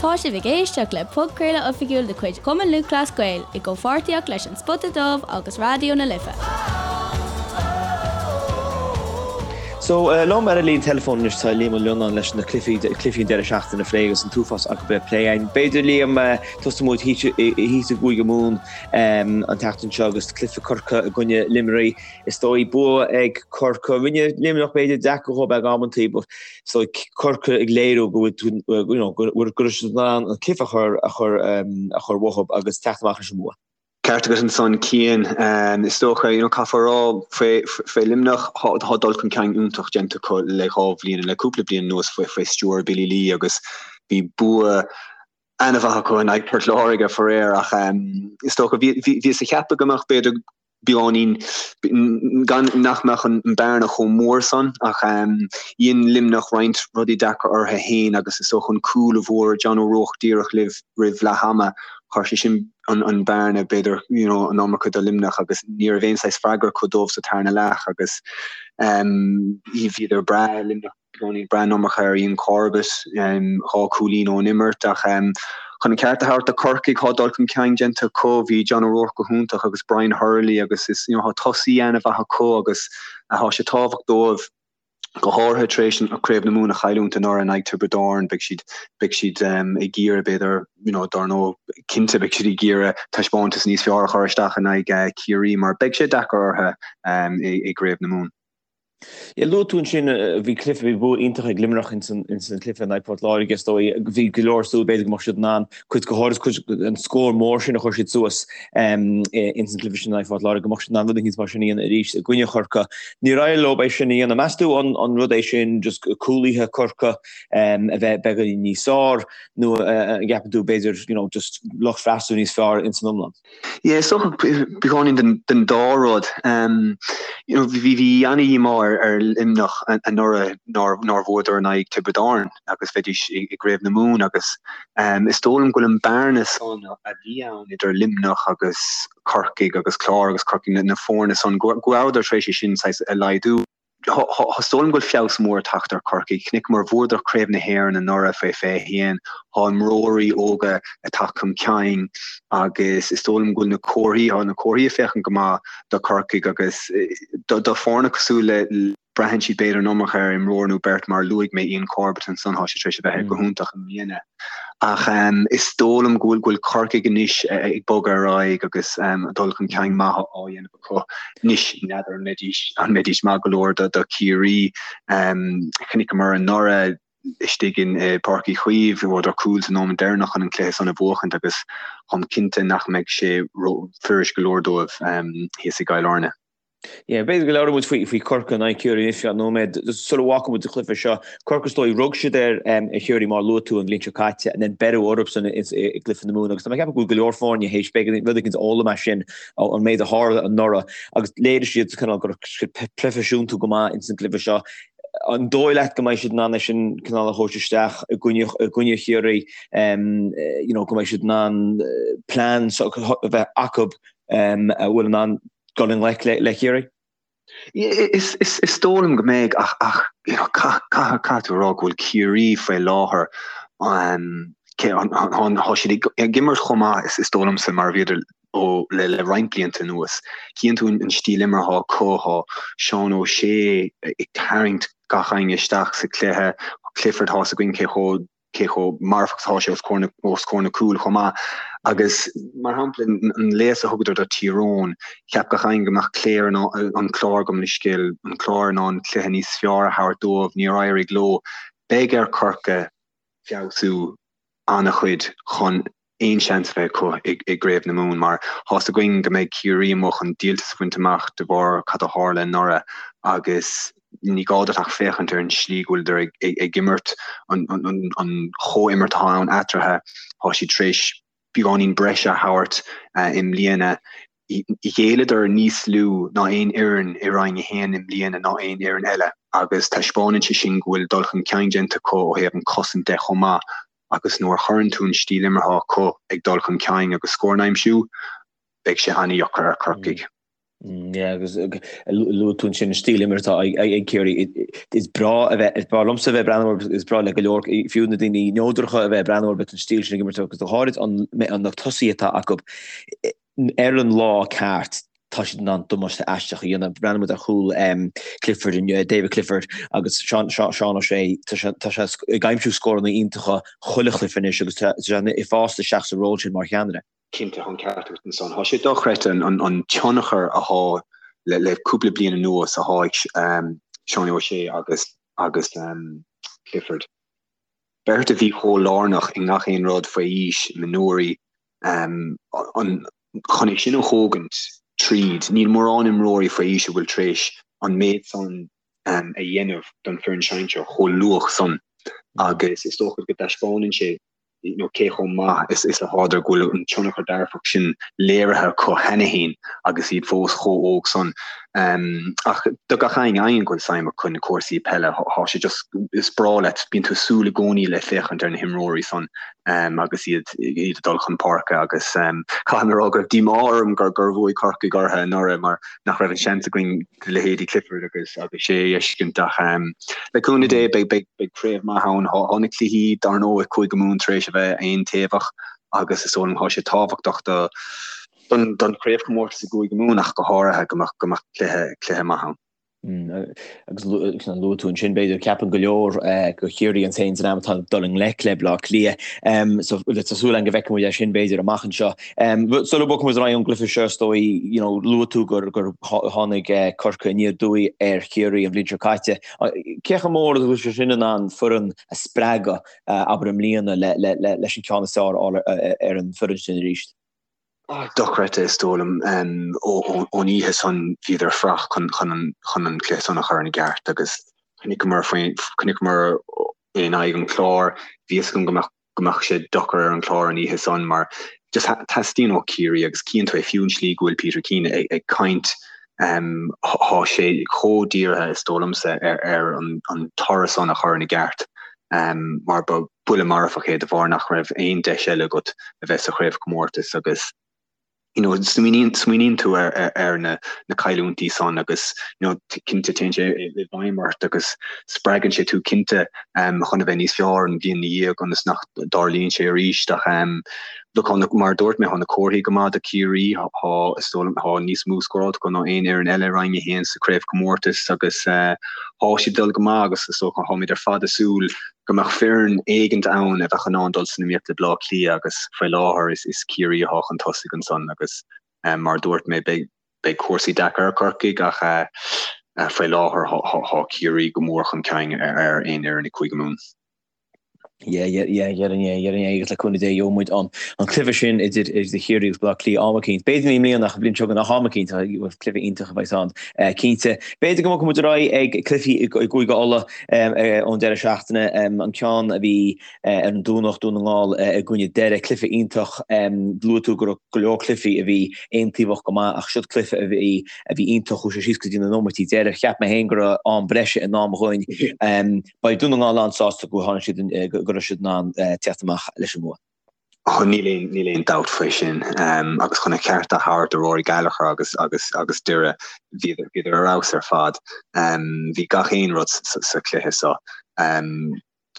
Tá sibh ag éisteacht le podchraoladh oifigiúil de chuid Chumann Lúthchleas Gael i gcomhpháirtíocht leis An Spota Dubh agus Raidió na Life. So, liom ar an líne teileafóin anois tá Liam Ó Lionnáin leis na cluichí, cluichí an deireadh seachtaine a phlé agus an t-uafás acu le plé againn. B'fhéidir, Liam, tosóidh muid thíos i gCúige Mumhan an tseachtain seo agus cluiche Corcaigh i gcoinne Luimnigh. Is dóigh bua ag Corcaigh. Rinne Luimneach b'fhéidir deacair dhóibh ag amantaí but is dóigh Corcaigh ag léiriú go bhfuil you know go raibh siad in ann an cluiche a chur a chur a chur uathub agus teacht amach leis an mbua. Ceart agat ansan Cian. Is dócha you know caithfear a rá faoi faoi Luimneach tá dul chun cinn iontach déanta acu le dhá bhliain le cúpla bliain anuas faoi faoi stiúir Billy Lee agus bhí bua an-mhaith acu in aghaidh Port Láirge faraor ach is dócha bhíothas ag ceapadh go mbeadh b'fhéidir beagáinín gan nach mbeadh an bearna chomh mór san ach dhein Luimneach roinnt rudaí deacra orthu féin agus is dócha an cúl a bhfuair John O'Rourke díreach libh roimh leath ama chuir sé sin an an bearna b'fhéidir you know an iomarca do Luimneach agus ní raibh aon saghas freagra acu dóibh sa tarna leath agus bhíodar breá Luimneach beagáinín ag brath an iomarca ar Ian Corbett, 2 cúilín ón imirt ach chun an ceart a thabhairt do Chorcaigh, tá dul chun cinn déanta acu. Bhí John O'Rourke go hiontach agus Brian Hurley agus is you know tá tosaí an-mhaith acu agus tá sé tábhachtach dóibh go háirithe tar éis an Craobh na Mumhan a chailliúint anuraidh in aghaidh Tiobraid Árann beidh siad beidh siad ag iarraidh b'fhéidir you know dar ndóigh cinnte beidh siad ag iarraidh taispeántas níos fearr a chur isteach in aghaidh Ciarraí mar beidh sé deacair orthu i gCraobh na Mumhan. Yeah, luaigh tú ansin, bhí cluiche, bhí bua iontach ag Luimneach ins an chluiche in aghaidh Port Láirge, is dóigh. Bhí go leor súil b'fhéidir go mbeadh siad in ann cuid, go háirid cuid an scór mór sin a chuir siad suas ins an chluiche sin in aghaidh Phort Láirge, go mbeadh siad in ann rud éicint mar sin a dhéanamh arís i gcoinne Chorcaí. Níor éirigh leo é sin a dhéanamh. Meas tú an an rud é sin just cúlaithe Corcaigh a bheith beagáinín níos fearr nó an gceapann tú b'fhéidir you know just lucht freastail níos fearr ins an iomlán? Yeah, is dócha beagáinín den, den dá rud. You know, bhí, bhí ana-dhíomá ar, ar Luimneach anuraidh nár, nár bhuadar in aghaidh Tiobraid Árann agus bheidís i, i gCraobh na Mumhan agus is dóigh liom go bhfuil an bearna san a bhí ann idir Luimneach agus Corcaigh agus Clár agus Corcaigh, na, na foirne san, go, go rabhadar tar éis é sin saghas a laghdú. Is dóigh liom go bhfuil feabhas mór ag teacht ar Chorcaigh. Chonaiceamar, bhuadar Craobh na hÉireann anuraidh fé 21. Tá imreoirí óga ag teacht chun cinn agus is dóigh liom go bhfuil na comharthaí, tá na comharthaí ag féachaint go maith do Chorcaigh agus do foirne cosúil le, braitheann siad b'fhéidir an iomarca ar imreoir nó beirt mar luaigh mé Ian Corbett ansan, tá sé tar éis a bheith go hiontach i mbliana. Ach is dóigh liom go bhfuil Corcaigh anois ag bogadh ar aghaidh agus dul chun cinn maith á dhéanamh acu. Anois, n'fheadar an mbeidís, an mbeidís maith go leor do Chiarraí. Chonaiceamar anuraidh istigh in Páirc Uí Chaoimh, bhuadar cúl sa nóiméad deireanach chun an cluiche san a bhuachaint agus táim cinnte nach mbeidh sé fuirist go leor dóibh thíos i gCill Airne. Yeah, b'fhéidir go labhróidh muid faoi, faoi Corcaigh in aghaidh Chiarraí anois feadh nóiméad. Sula bhfágfaidh muid an cluiche seo, Corcaigh is dóigh, rug siad ar Chiarraí mar a luaigh tú an bhliain seo caite and then beireadh orthu san i gcluiche na Mumhan agus tá mé ag ceapadh go bhfuil go leor foirne théis b'fhéidir rud éicint a fhoghlaim as sin an méid a tharla anuraidh agus léirigh siad cineál go raibh siad proifisiúnta go maith ins an gcluiche seo. An dóigh leat go mbeidh siad in ann é sin cineál a thabhairt isteach i gcoinne i gcoinne Chiarraí you know go mbeidh siad in ann plean a bheith acu a bhfuil in ann dul i ngleic le Ciarraí? Is dóigh liom go mbeidh ach ach you know caithfidh tú a rá go bhfuil Ciarraí faoi láthair tá siad ag imirt chomh maith is dóigh liomsa mar a bhíodar ó le le roinnt blianta anuas. Cíonn tú an stíl imeartha acu, tá Seán O'Shea ag tarraingt gach éinne isteach sa chluiche, Clifford tá 's againn cé chomh cé chomh marfach atá sé os comhair na os comhair na cúil chomh maith. Agus mar shampla an léas a thugadar do Thír Eoghain, cheap gach éinne go mbeadh Clare in an Clár gabh mo leithscéal, an Clár in ann cluiche níos fearr a thabhairt dóibh, níor éirigh leo. Beidh ar Chorcaigh feabhsú an-chuid chun aon seans a bheith acu i gCraobh na Mumhan mar tá's againn go mbeidh Ciarraí amuigh chun díoltas a bhaint amach de bharr cad a tharla anuraidh agus ní gá duit ach féachaint ar an slí go bhfuileadar ag imirt, an chomhimirt atá ann eatarthu, tá siad tar éis beagáinín breise a thabhairt i mbliana. Ghéilleadar níos lú ná aon fhoireann i Roinn 1 i mbliana ná aon fhoireann eile agus taispeánann sé sin go bhfuil dul chun cinn déanta acu ó thaobh an chosaint de chomh maith agus nuair a chuireann tú an stíl imeartha acu ag dul chun cinn agus scóranna a aimsiú, beidh sé an-dheacair ar Chorcaigh. Yeah, agus luaigh tú ansin an stíl imeartha atá ag Ciarraí. Is breá a bheith, is breá liomsa a bheith ag breathnú orthu, is breá le go leor, fiú na daoine neodracha a bheith ag breathnú orthu an stíl sin ag imirt agus go háirid an na tosaithe atá acu ar an lá ceart tá siad in ann damáiste aisteach a dhéanamh. Breathnaíonn muid ar chúl Clifford inniu, David Clifford agus Seán Seán O'Shea, tá sé tá sé ag aimsiú scóranna iontacha chuile chluiche anois agus tá sé ag fás isteach sa ról sin mar cheannaire. Cinnte, tá an ceart agat ansan. Tá sé dochreidte an tionchar athá le cúpla bliain anuas athá ag Seánie O'Shea agus agus Clifford. Beirt a bhí chomh lárnach i ngach aon rud faoi aois, mionúirí, chun é sin a thógaint tríd. Níl mórán imreoirí faoi aois a bhfuil tar éis an méid san a dhéanamh don foireann sinsear chomh luath san agus is dócha go dtaispeánann sé you know, cé chomh maith is is athádar go bhfuil an tionchar dearfach sin léirithe acu cheana féin agus iad fós chomh óg san. Um, ach do gach éinne éinne go bhfuil suim acu na cúrsaí peile, thá sé just is breá leat, bíonn tú ag súil i gcónaí le féachaint ar na himreoirí san um, agus iad iad ag dul chun páirce agus um, caithfidh mé a rá go raibh díomá orm gur gur bhuaigh Corcaigh orthu anuraidh mar nach raibh an seans againn leithéidí Clifford agus agus O'Shea a fheiscint ach le cúnamh Dé beidh beidh beidh craobh maith ann. Thá na cluichí dar ndóigh Cúige Mumhan tar éis a bheith aontaobhach agus is dóigh liom thá sé tábhachtach do don don chraobhchomórtas i gCúige Mumhan ach go háirithe go mbeadh go mbeadh cluiche cluiche maith ann. Agus luaigh tú ansin b'fhéidir ceapann go leor gur Ciarraí an t-aon dream atá ag dul i ngleic le Bleá Cliath. So tá súil againn go bhfeicfidh muid é sin b'fhéidir amach anseo. Sula mbogfaidh muid ar aghaidh ón gcluiche seo is dóigh you know luaigh tú gur gur tháinig Corcaigh aniar aduaidh ar Chiarraí an bhliain seo caite. Cé chomh mór is a bhfuil sé sin in ann foireann a spreagadh abair i mbliana le le le leis an ceann is fearr a fháil ar an bhfoireann sin arís? Dochreidte is dóigh liom. Ón oíche san bhíodar fuar chun chun an chun an cluiche san a chur ina gceart agus chonaiceamar faoi chonaiceamar in aghaidh an Chláir bhí fhios agam go mbeadh go mbeadh sé deacair ar an Chlár an oíche san mar just teastaíonn ó Chiarraí agus cíonn tú é fiú an slí go bhfuil Peter Keane ag, ag caint um, thá sé chomh dírithe is dóigh liomsa ar, ar an, an toradh san a chur ina gceart um, mar ba buille marfach é de bharr nach raibh aon deis eile agat a bheith sa chraobhchomórtas agus you know, smaoiníonn, smaoiníonn tú ar, ar, ar na, na cailliúintí san agus you know, cinnte téann sé i, i bhfeidhm ort agus spreagann sé tú cinnte um, chun a bheith níos fearr an bhliain ina dhiaidh ionas nach dtarlaíonn sé arís ach um, look, thá na, mar a dúirt mé, thá na comharthaí go maith do Chiarraí, thá, is dóigh liom, thá níos mó scóráilte acu ná aon fhoireann eile i Roinn 1 sa chraobhchomórtas agus uh, thá siad ag dul go maith agus is dócha tháimid ar fad ag súil go mbeadh foireann éigint ann a bheadh in ann dul san iomaíocht le Bleá Cliath agus faoi láthair is Ciarraí athá chun tosaigh ansan agus mar a dúirt mé beidh beidh cúrsaí deacair ar Chorcaigh ach faoi láthair thá Ciarraí go mór chun cinn ar aon fhoireann i Cúige Mumhan. Yeah, yeah, yeah, déarfainn é, déarfainn é agus le cúnamh Dé gheobhaidh muid an an cluiche sin idir idir Chiarraí agus Bleá Cliath am eicínt. B'fhéidir ní i mbliana ach an bhliain seo chugainn ach am eicínt cluiche iontach a bheas ann. Cinnte. B'fhéidir go mbogfaidh muid ar aghaidh ag cluichí i gCúige Uladh. ón deireadh seachtaine, an ceann a bhí ar an Domhnach, Dún na nGall i gcoinne Doire, cluiche iontach. Luaigh tú go raibh go leor cluichí a bhí aontaobhach go maith ach siod cluiche a bhí a bhí iontach, chuaigh sé síos go dtí na nóiméidí deiridh. Cheap mé féin go raibh am breise i ndán dhúinn. Beidh Dún na nGall an-sásta go tháinig siad go raibh siad in ann teacht amach leis an mbua. Níl aon, níl aon dabht faoi sin. Agus chun a cheart a thabhairt do Rory Gallagher agus, agus, agus Doire, bhíodar, bhíodar ar fheabhas ar fad. Bhí gach aon rud sa, sa chluiche seo.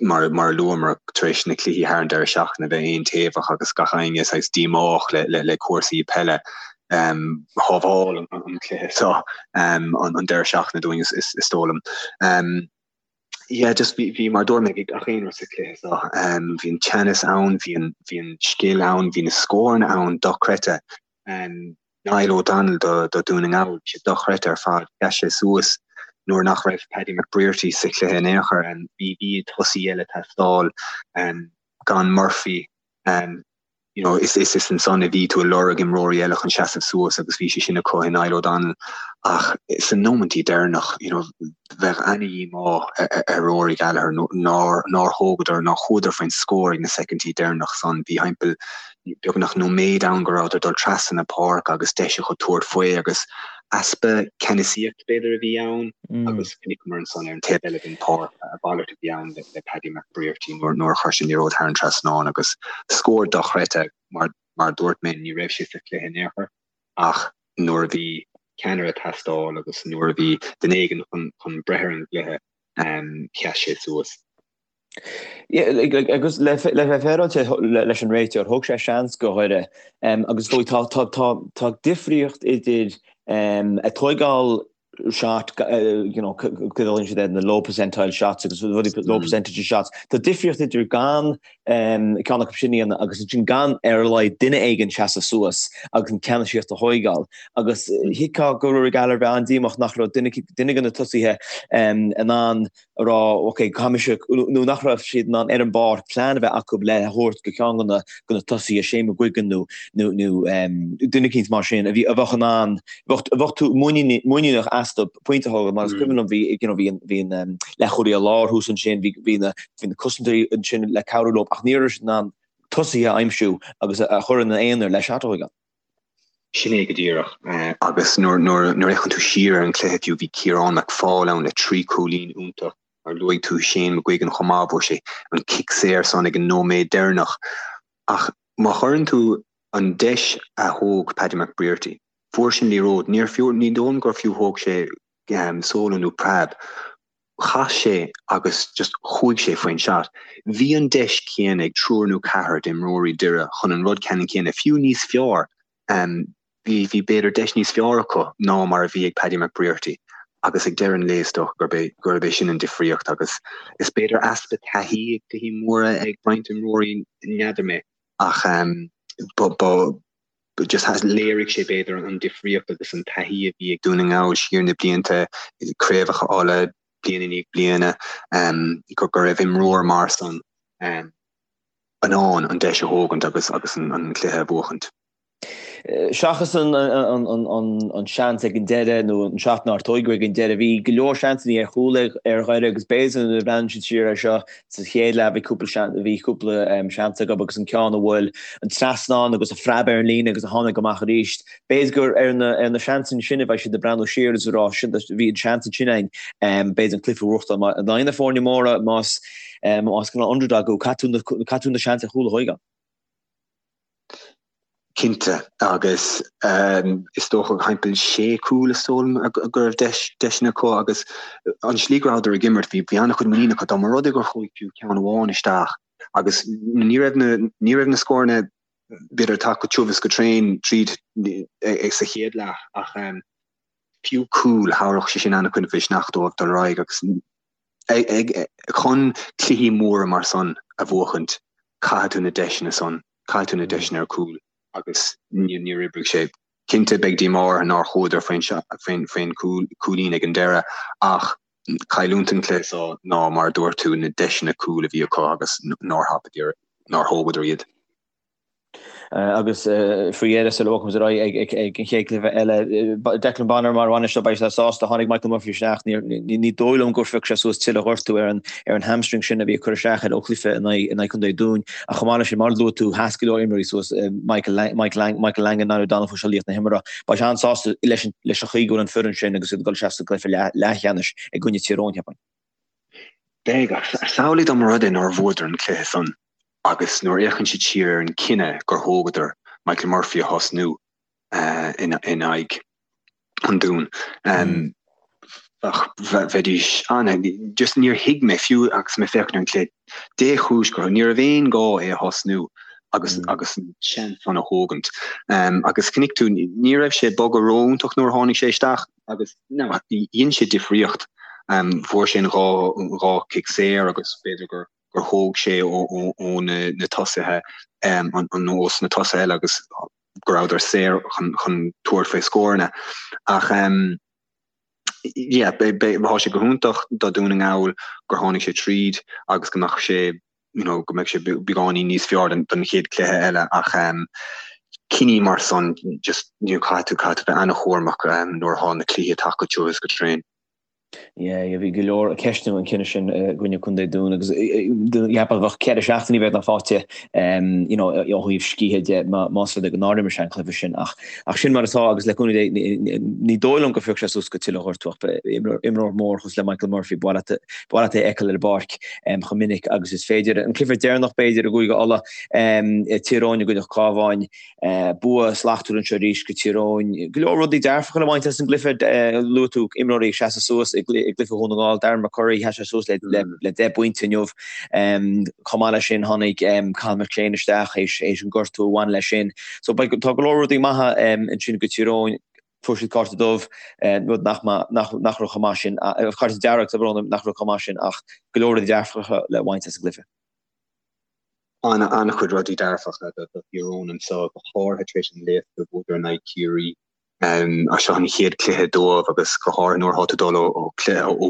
Mar, mar a luamar, tar éis na cluichí thar an deireadh seachtaine a bheith aontaobhach agus gach éinne saghas díomách le, le, le cúrsaí peile, shábháil an, an cluiche seo an, an deireadh seachtaine dúinn, is, is, is dóigh liom. Yeah, just bhí, bhí, mar a dúirt mé, bhí gach aon rud sa chluiche seo. Um, bhí an teannas ann, bhí an, bhí an scil ann, bhí na scóranna ann dochreidte. Um, Niall O'Donnell do, do Dún na nGall, bhí sé dochreidte ar fad. Sheas sé suas nuair nach raibh Paddy McBrearty sa chluiche in aon chor. Um, bhí, bhí tosaí eile ag teastáil, um, gan Murphy, um, you know, is is is ansan a bhí tú ag lorg imreoirí eile chun seasamh suas agus bhí sé sin acu i Niall O'Donnell ach sna nóimintí deireanach, you know, bheadh ana-dhíomá ar Rory Gallagher nár nár thógadar, nár chuadar faoin scór ag na soicindí deireanach san. Bhí thimpeall beagnach nóiméad ann go rabhadar ag dul trasna na páirce agus deis acu tabhairt faoi agus easpa ceannasaíocht b'fhéidir a bhí ann agus chonaiceamar ansan ar an taobh eile den pháirc a mhalairt a bhí ann le Paddy McBrearty nuair a chuir sé an liathróid thar an trasnán agus scór dochreidte mar mar a dúirt mé ní raibh sé sa chluiche in aon chor ach nuair a bhí. ceannaire ag teastáil agus nuair a bhí duine éigin chun breith ar an gcluiche, sheas sé suas. Agus le bheith féaráilte leis an réiteoir, thóg sé seans go Dhoire agus is dóigh tá difríocht idir ag tóigeáil shot, you know, go bhfuil siad ar na low percentile shots agus rudaí low percentage shots. Tá difríocht idir gan ceann acu sin a dhéanamh agus ansin gan ar a laghad duine éigin seasamh suas agus an ceannasaíocht a thóigeáil. Agus thuigfeá go Rory Gallagher bheith an-díomách nach raibh duine duine de na tosaithe in ann a rá ok, caithfidh mise, nó nach raibh siad in ann ar an bpáirc plean a bheith acu le a thabhairt go ceann de na de na tosaithe, Shane McGuigan nó nó nó duine eicínt mar sin a bhí a bheadh in ann, bheadh bheadh tú muiníneach astu pointe a thógáil mar is cuimhin liom bhí you know bhí an bhí an leathchúlaí láir thuas ansin, bhí bhí na bhí na cosantóirí ansin le cabhrú leo ach ní raibh siad in ann tosaithe a aimsiú agus a chur ina aonar le shot a thógáil. Sin é go díreach. Agus nuair a fhéachann tú siar ar an chluiche fiú, bhí Ciarán McFaul ann le 3 chúilín iontach. Mar luaigh tú Shane McGuigan chomh maith, fuair sé an cic saor san ag an nóiméad deireanach. Ach má chuireann tú an deis a thóg Paddy McBrearty, fuair sé an liathróid, níor fiú, ní dóigh liom gur fiú thóg sé solo nó preab. Chas sé agus just chuaigh sé faoin shot. Bhí an deis céanna ag triúr nó ceathrar d'imreoirí Doire chun an rud ceannann céanna, fiú níos fearr, bhí, bhí b'fhéidir deis níos fearr acu ná mar a bhí ag Paddy McBrearty agus ag deireadh an lae is dócha gurb é, gurb é sin an difríocht agus is b'fhéidir easpa taithí ag cluichí móra ag roinnt imreoirí, n'fheadar mé, ach ba, ba, just léirigh sé b'fhéidir an difríocht agus an taithí a bhí ag Dún na nGall siar na blianta, craobhacha Uladh bliain i ndiaidh bliana, go raibh imreoir mar san in ann an deis a thógaint agus agus an cluiche a bhuachaint. Seachas an seans ag an deireadh nó an shot nár tóigeadh ag an deireadh, bhí go leor seansanna ar chúl ar Dhoire agus b'fhéidir nuair a bhreathnaíonn siad siar air seo Sa chéad leath bhí cúpla bhí cúpla seans acu agus an ceann a bhuail an trasnán agus a phreab ar an líne agus a tháinig amach arís. B'fhéidir gur ar na ar na seansanna sin a bheidh siad ag breathnú siar agus ag rá sin bhí an seans ansin againn b'fhéidir an cluiche a bhuachtáil. Mar in aghaidh na foirne móra más más cineál underdog thú caithfidh tú caithfidh tú na seans ar chúl a thóigeáil. Cinnte, agus is dócha thimpeall sé cúl is dóigh liom go raibh deiseanna acu agus an slí go rabhadar ag imirt bhí an-chuid muinín acu dá mba rud é gur chuaigh fiú ceann amháin isteach agus ní raibh na ní raibh na scóranna b'fhéidir ag teacht go tiubh is go tréan tríd sa chéad leath ach fiú cúl thabharfadh sé sin an-chuid mhisneach dóibh dul ar aghaidh agus chun cluichí móra mar san a bhuachaint caithfidh tú na deiseanna san Caithfidh tú na deiseanna ar cúl agus níor oibrigh sé. Cinnte beidh díomá orthu nár chuadar faoin cúilín ag an deireadh ach cailliúint an chluiche seo ná mar a dúirt tú na deiseanna cúil a bhí acu agus nár thapaíodar, nár thógadar iad. Agus faoi dheireadh sula bhfágfaimid ar aghaidh ag an chéad chluiche eile, Declan Bonner mar bhainisteoir, beidh sé sásta, tháinig Michael Murphy isteach, ní dóigh liom gur phioc sé suas tuilleadh gortú ar an hamstring sin a bhí ag cur isteach air ó chluiche in aghaidh Contae Dúin. Ach chomh maith leis sin, mar a luaigh tú, sheas go leor imreoirí suas, Michael Michael Langan, Niall O'Donnell, fuair sé laoch na himeartha. Beidh sé an-sásta leis an chaoi go bhfuil an foireann sin agus iad ag dul isteach sa gcluiche leathcheannais i gcoinne Tír Eoghain, cheapfainn. Beidh, ach samhlaigh dá mba rud é nár bhuadar an cluiche san agus nuair a fhéachann siad siar ar an cinneadh gur thógadar Michael Murphy a thosnú in aghaidh an Dúin. Bheidís an, just níor thuig mé fiú agus mé féachaint ar an cluiche, dé chúis gur, ní raibh aon gá é a thosnú agus agus an seans san a thógaint. Agus chonaic tú, ní raibh sé ag bogadh ró-iontach nuair a tháinig sé isteach agus no, dhein sé difríocht. Fuair sé an dhá cic saor agus b'fhéidir gur gur thóg sé ó na tosaithe, ós na tosaithe eile agus go rabhadar saor chun tabhairt faoi scóranna. Ach yeah, tá sé go hiontach do Dún na nGall gur tháinig sé tríd agus go mbeadh sé you know, go mbeidh sé beagáinín níos fearr don chéad cluiche eile ach cinní mar san just you know, caithfidh tú caithfidh tú bheith an-chúramach nuair atá na cluichí ag teacht go tiubh is go tréan. Yeah, yeah, bhí go leor ag ceistiú an cinneadh sin i gcoinne Contae Dún agus cheapfá bheadh 4 seachtainí beagnach faighte you know, ó thaobh scíthe de más rud é go nár imir sé an cluiche sin ach ach sin mar atá agus le cúnamh Dé ní dóigh liom go phiocfaidh sé suas go tuilleadh gortú ach imreoir mór cosúil le Michael Murphy ba mhaith leat é a fheiceáil ar an bpáirc chomh minic agus is féidir. An cluiche deireanach b'fhéidir i gCúige Uladh, Tír Eoghain i gcoinne Cabháin. Bua slachtmhar anseo arís go Tír Eoghain. Go leor rudaí dearfacha le baint as an gcluiche. Luaigh tú imreoirí ag seasamh suas i gcluiche Dhún na nGall. Darren McCurry, sheas sé suas le 10 bpointe inniu. Chomh maith leis sin tháinig Cathal McShane isteach théis an gortú a bhain leis sin. So tá go leor rudaí maithe ansin go Tír Eoghain. Fuair siad cárta dubh, rud nach nach raibh chomh maith sin, cárta dearg, tá brón orm, nach raibh chomh maith sin ach go leor rudaí dearfacha le baint as an gcluiche. An-chuid rudaí dearfacha do Thír Eoghain anseo, go háirithe tar éis an léasadh a bhuadar in aghaidh Chiarraí. Seo an chéad chluiche dóibh agus go háirithe nuair atá tú ag dul ó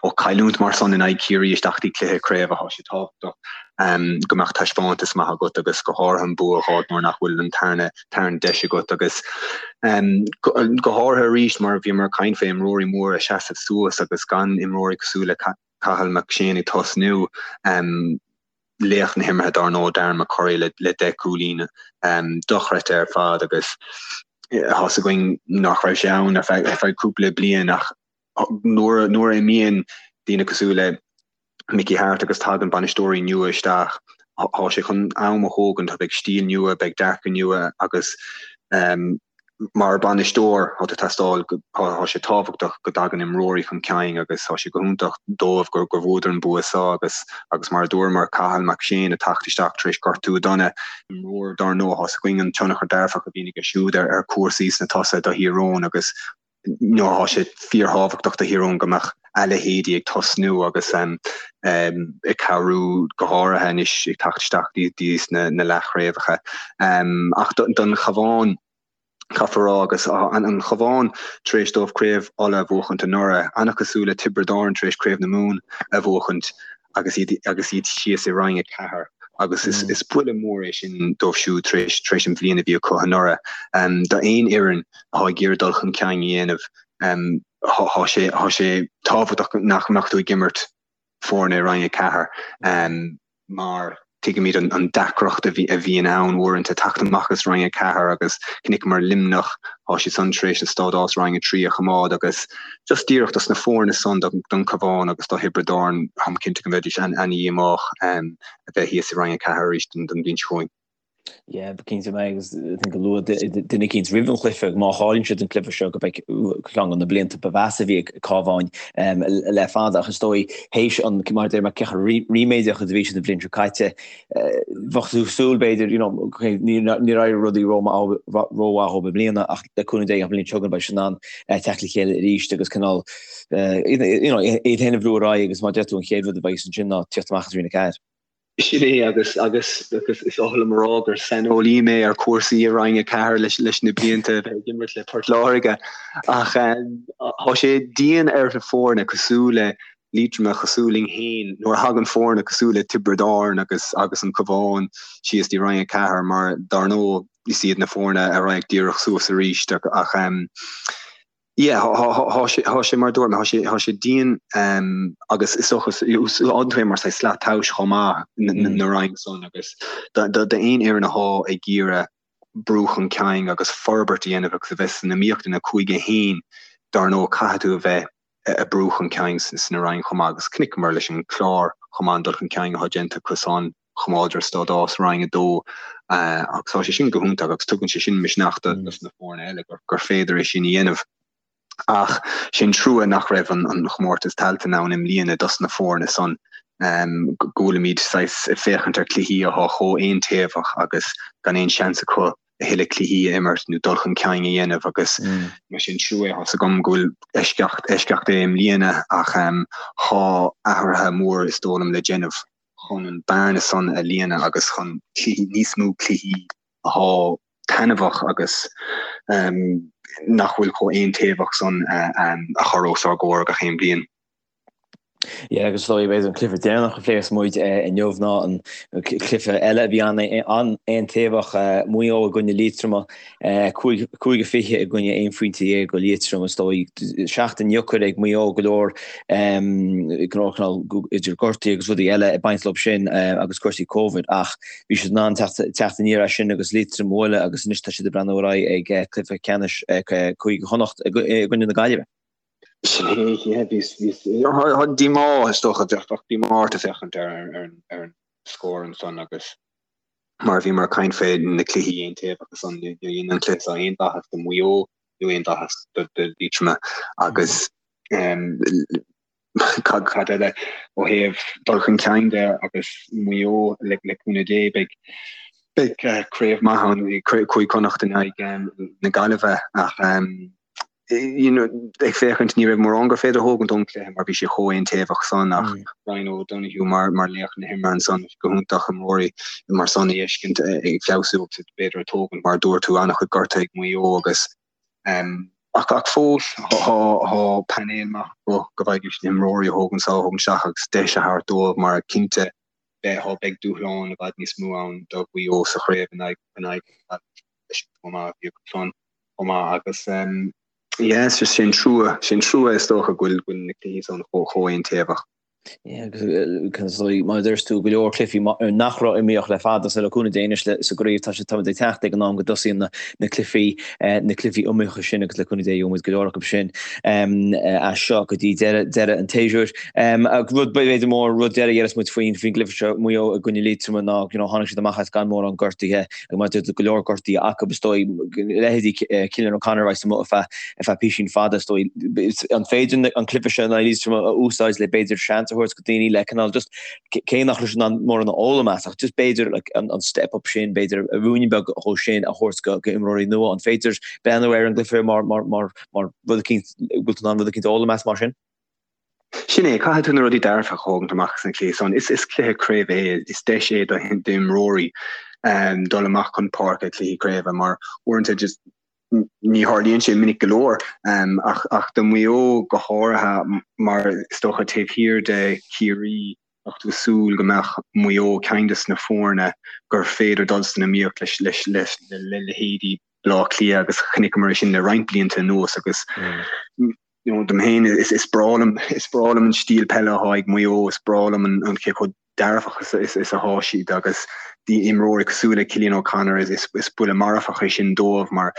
ó chailliúint mar san in aghaidh Chiarraí isteach dtí cluiche craoibhe, tá sé tábhachtach go mbeadh taispeántas maith agat agus go háirithe an bua a fháil nuair nach bhfuil an tarna tarna deis agat agus go háirithe arís mar bhíomar ag caint fé imreoirí móra ag seasamh suas agus gan imreoirí cosúil le Cathal McShane ag tosnú. Laoch na himeartha dár ndóigh, Darren McCurry le 10 gcúilín dochreidte ar fad agus tá's againn nach raibh sé ann ar feadh cúpla bliain ach nuair a imíonn daoine cosúil le Mickey Harte agus tagann bainisteoirí nua isteach, tá sé chun am a thógaint, beidh stíl nua, beidh dearcadh nua agus Mar bhainisteoir, tá tú teastáil, tá sé tábhachtach go dtagann imreoirí chun cinn agus tá sé go hiontach dóibh gur bhuadar an bua seo agus agus mar a dúramar, Cathal McShane ag teacht isteach tar éis gortú dona, imreoir dár ndóigh, tá's againn an tionchar dearfach a bhíonn aige siúd ar chúrsaí sna tosaithe do Thír Eoghain agus nó tá sé fíorthábhachtach do Thír Eoghain go mbeadh a leithéidí ag tosnú agus ag cabhrú go háirithe anois ag teacht isteach dtí na leathchraobhacha. Ach don Chabhán, caithfear a rá, agus an Chabhán tar éis dóibh Craobh Uladh a bhuachaint anuraidh, an-chosúil le Tiobraid Árann tar éis Craobh na Mumhan a bhuachaint agus iad agus iad síos i Roinn 4 agus is is buille mór é sin dóibh siúd tar éis tar éis an bhliain a bhí acu anuraidh. D'aon fhoireann atá ag iarraidh dul chun cinn a dhéanamh, tá sé tá sé tábhachtach nach mbeadh tú ag imirt foirne i Roinn 4 mar tuigimid an deacracht a bhíonn ann uaireanta teacht amach as Roinn 4 agus chonaiceamar Luimneach, tá siad san tar éis a stádás Roinn 3 a choimeád agus just díreach dos na foirne san, don Chabhán agus do Thiobraid Árann, táim cinnte go mbeidís an-dhíomách a bheith thíos i Roinn 4 arís don bhliain seo chugainn. Yeah, cinnte mé agus I think luaigh duine eicínt roimh an chluiche má chailleann siad an cluiche seo go mbeidh ceann de na blianta ba mheasa a bhí ag Cabhán le fada ach is dóigh théis an mar deir mé cé chomh ríméadach is a bhí siad an bhliain seo caite bheadh tú súil b'fhéidir you know níor éirigh rudaí rómhaith dóibh i mbliana ach le cúnamh Dé an bhliain seo chugainn beidh siad in ann teacht le chéile arís agus cineál you know iad féin a bhrú ar aghaidh agus mar deir tú an chéad rud a bheidh ansin ná tíocht amach as Roinn 4. Sin é agus agus agus is oth liom a rá gur saineolaí mé ar chúrsaí i Roinn 4 leis leis na blianta a bheith ag imirt le Port Láirge ach tá sé dian ar na foirne cosúil le Liatroim cosúil linn féin nuair a thagann foirne cosúil le Tiobraid Árann agus agus an Cabhán síos dtí Roinn 4 mar dar ndóigh is iad na foirne a raghaidh díreach suas arís ach Yeah, thá sé, thá sé mar a dúirt mé, thá sé, thá sé dian agus is dócha, úsáideann tú é mar saghas slat tomhais chomh maith na roinn san agus d'aon fhoireann athá ag iarraidh brú chun cinn agus forbairt a dhéanamh agus a bheith san iomaíocht ina cúige féin, dar ndóigh caithfidh tú a bheith ag brú chun cinn sna roinn chomh maith agus chonaiceamar leis an Chlár chomh maith an dul chun cinn athá déanta acu san. Choimeádar stádás Roinn 2 agus tá sé sin go hiontach agus tugann sé sin misneach do na foirne eile gur féidir é sin a dhéanamh. Ach sé an trua nach raibh an chomórtas Tailteann ann i mbliana dos na foirne san, go bhfuilimid saghas ag féachaint ar cluichí athá chomh aontaobhach agus gan aon seans acu a thuilleadh cluichí a imirt nó dul chun cinn a dhéanamh agus mar sin trua é. Tá's agam go bhfuil eisceacht eisceacht é i mbliana ach thá athruithe mór is dóigh liom le déanamh. chun an bearna san a líonadh agus chun cluichí, níos mó cluichí athá taitneamhach agus nach bhfuil chomh aontaobhach san a chur os ár gcomhair gach aon bhliain. Yeah, agus is dóigh b'fhéidir an cluiche deireanach a phléifeas muid inniu ná an cluiche eile a bhí an-aontaobhach, Maigh Eo i gcoinne Liatroma, 5-20 i gcoinne 11 phointe go Liatroim is dóigh. Seachtain dheacair ag Maigh Eo go leor go leor cineál idir gortuithe agus rudaí eile ag baint leo sin agus cúrsaí Covid ach bhí siad in ann teacht aniar as sin agus Liatroim a bhualadh agus anois tá siad ag breathnú ar aghaidh ag cluiche ceannais Cúige Chonnacht i gcoinne na Gaillimhe. Sin é, yeah, bhí, bhí, díomá is dócha, bheadh díomá ort ag féachaint ar ar an scór ansan agus mar a bhíomar ag caint fé na cluichí aontaobhacha san, níor dhein an cluiche seo aon mhaitheas do Mhaigh Eo nó aon mhaitheas do Liatroim agus cad cad eile ó thaobh dul chun cinn de agus Maigh Eo le le cúnamh Dé beidh beidh craobh maith ann Cúige Chonnacht in aghaidh na Gaillimhe ach you know, ag féachaint ní raibh mórán gur féidir a thógaint ón cluiche mar bhí sé chomh aontaobhach san ach Ryan O'Donoghue mar mar laoch na himeartha ansan go hiontach imreoirí mar san a fheiscint ag feabhsú agus b'fhéidir ag tógaint mar a dúirt tú an-chuid gortuithe ag Maigh Eo agus um, ach ach fós thá thá painéal maith acu go bhfaighidís na himreoirí a thógaint sa thógaint isteach agus deis a thabhairt dóibh mar cinnte beidh thá beidh dúshlán i bhfad níos mó ann do Mhaigh Eo sa chraobh in aghaidh in aghaidh leis an chomh maith a bhí acu san. chomh maith agus yeah it's just sé an trua, sé an trua is dócha go bhfuil go bhfuil na cluichí san chomh chomh aontaobhach. Yeah agus is dóigh mar a dúirt tú go leor cluichí nach raibh iomaíoch le fada so le cúnamh Dé anois sa gcraobh tá sé táimid ag teacht ag an am go dtosaíonn na na cluichí na cluichí iomaíocha sin agus le cúnamh Dé gheobhaimid go leor acu sin as seo go dtí deireadh deireadh an tséasúir. Rud b'fhéidir mór rud deiridh a dhéarfas muid faoin faoin gcluiche seo Maigh Eo i gcoinne Liatroma ná you know tháinig siad amach as gan mórán gortuithe Agus mar a dúirt tú go leor gortuithe acu, is dóigh, leithéidí Cillian O'Connor a bheas amuigh ar feadh ar feadh písín fada, is dóigh. An féidir an cluiche seo in aghaidh Liatroma a úsáid le b'fhéidir seans a thabhairt go daoine le cineál just cé nach raibh siad in ann mórán a fhoghlaim as ach just b'fhéidir like an an step up sin, b'fhéidir ruainne beag dhó sin a thabhairt go go imreoirí nua. An féidir breathnú ar an gcluiche mar mar mar mar rud eicínt, bhfuil tú in ann rud eicínt a fhoghlaim as mar sin? Sin é, caithfidh tú na rudaí dearfacha a thógaint amach as an chluiche san. Is cluiche craoibhe é, is deis é d'imreoirí dul amach chun páirce i gcluichí craoibhe mar uaireanta just ní tharlaíonn sé minic go leor ach do Mhaigh Eo go háirithe mar is dócha taobh thiar de Chiarraí bheadh tú ag súil go mbeadh Maigh Eo ceann des na foirne gur féidir dul san iomaíocht leis le leithéidí Baile Átha Cliath agus chonaiceamar é sin le roinnt blianta anuas agus you know, dom féin is, is breá liom, is breá liom an stíl peile atá ag Maigh Eo, is breá liom an, an cé chomh dearfach is, is, is atá siad agus d'imreoirí cosúil le Cillian O'Connor is, is, is buille marfach é sin dóibh mar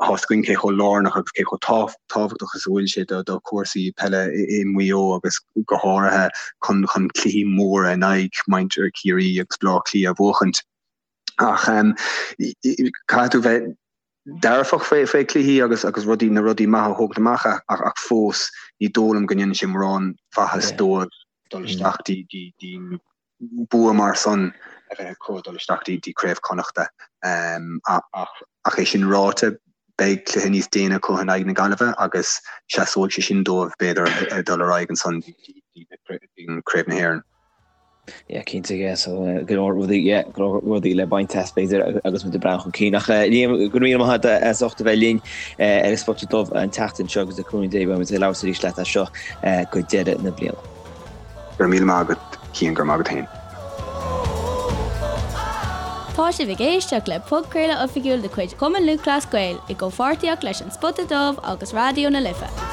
tá a fhios againn cé chomh lárnach agus cé chomh tábhachtach is a bhfuil sé do, do chúrsaí peile i, i Maigh Eo agus go háirithe chun, chun cluichí móra in aghaidh muintir Chiarraí agus Baile Átha Cliath a bhuachaint. Ach caithfidh tú bheith dearfach faoi faoi cluichí agus agus rudaí na rudaí maithe a thógaint amach ach ach fós ní dóigh liom go ndéanann sé mórán mhaitheas dóibh dul isteach dtí dtí dtí bua mar san a bheith acu dul isteach dtí dtí Craobh Connachta ach ach é sin ráite beidh cluiche níos déine acu in aghaidh na Gaillimhe agus seasóidh sé sin dóibh b'fhéidir dul ar aghaidh ansan dtí dtí Craobh na hÉireann. Yeah, cinnte, yeah, so go leor rudaí, yeah, go leor rudaí le baint as b'fhéidir agus muid ag breathnú chun cinn. Ach Liam, go raibh míle maith agat as ucht a bheith linn ar an Spota Dubh an tseachtain seo agus le cúnamh Dé beidh muid ag labhairt arís leat as seo go deireadh na bliana. Go raibh míle maith agat Cian, go raibh maith agat féin. Tá sibh ag éisteacht le podchraoladh oifigiúil de chuid Chumann Lúthchleas Gael i gcomhpháirtíocht leis An Spota Dubh agus Raidió na Life.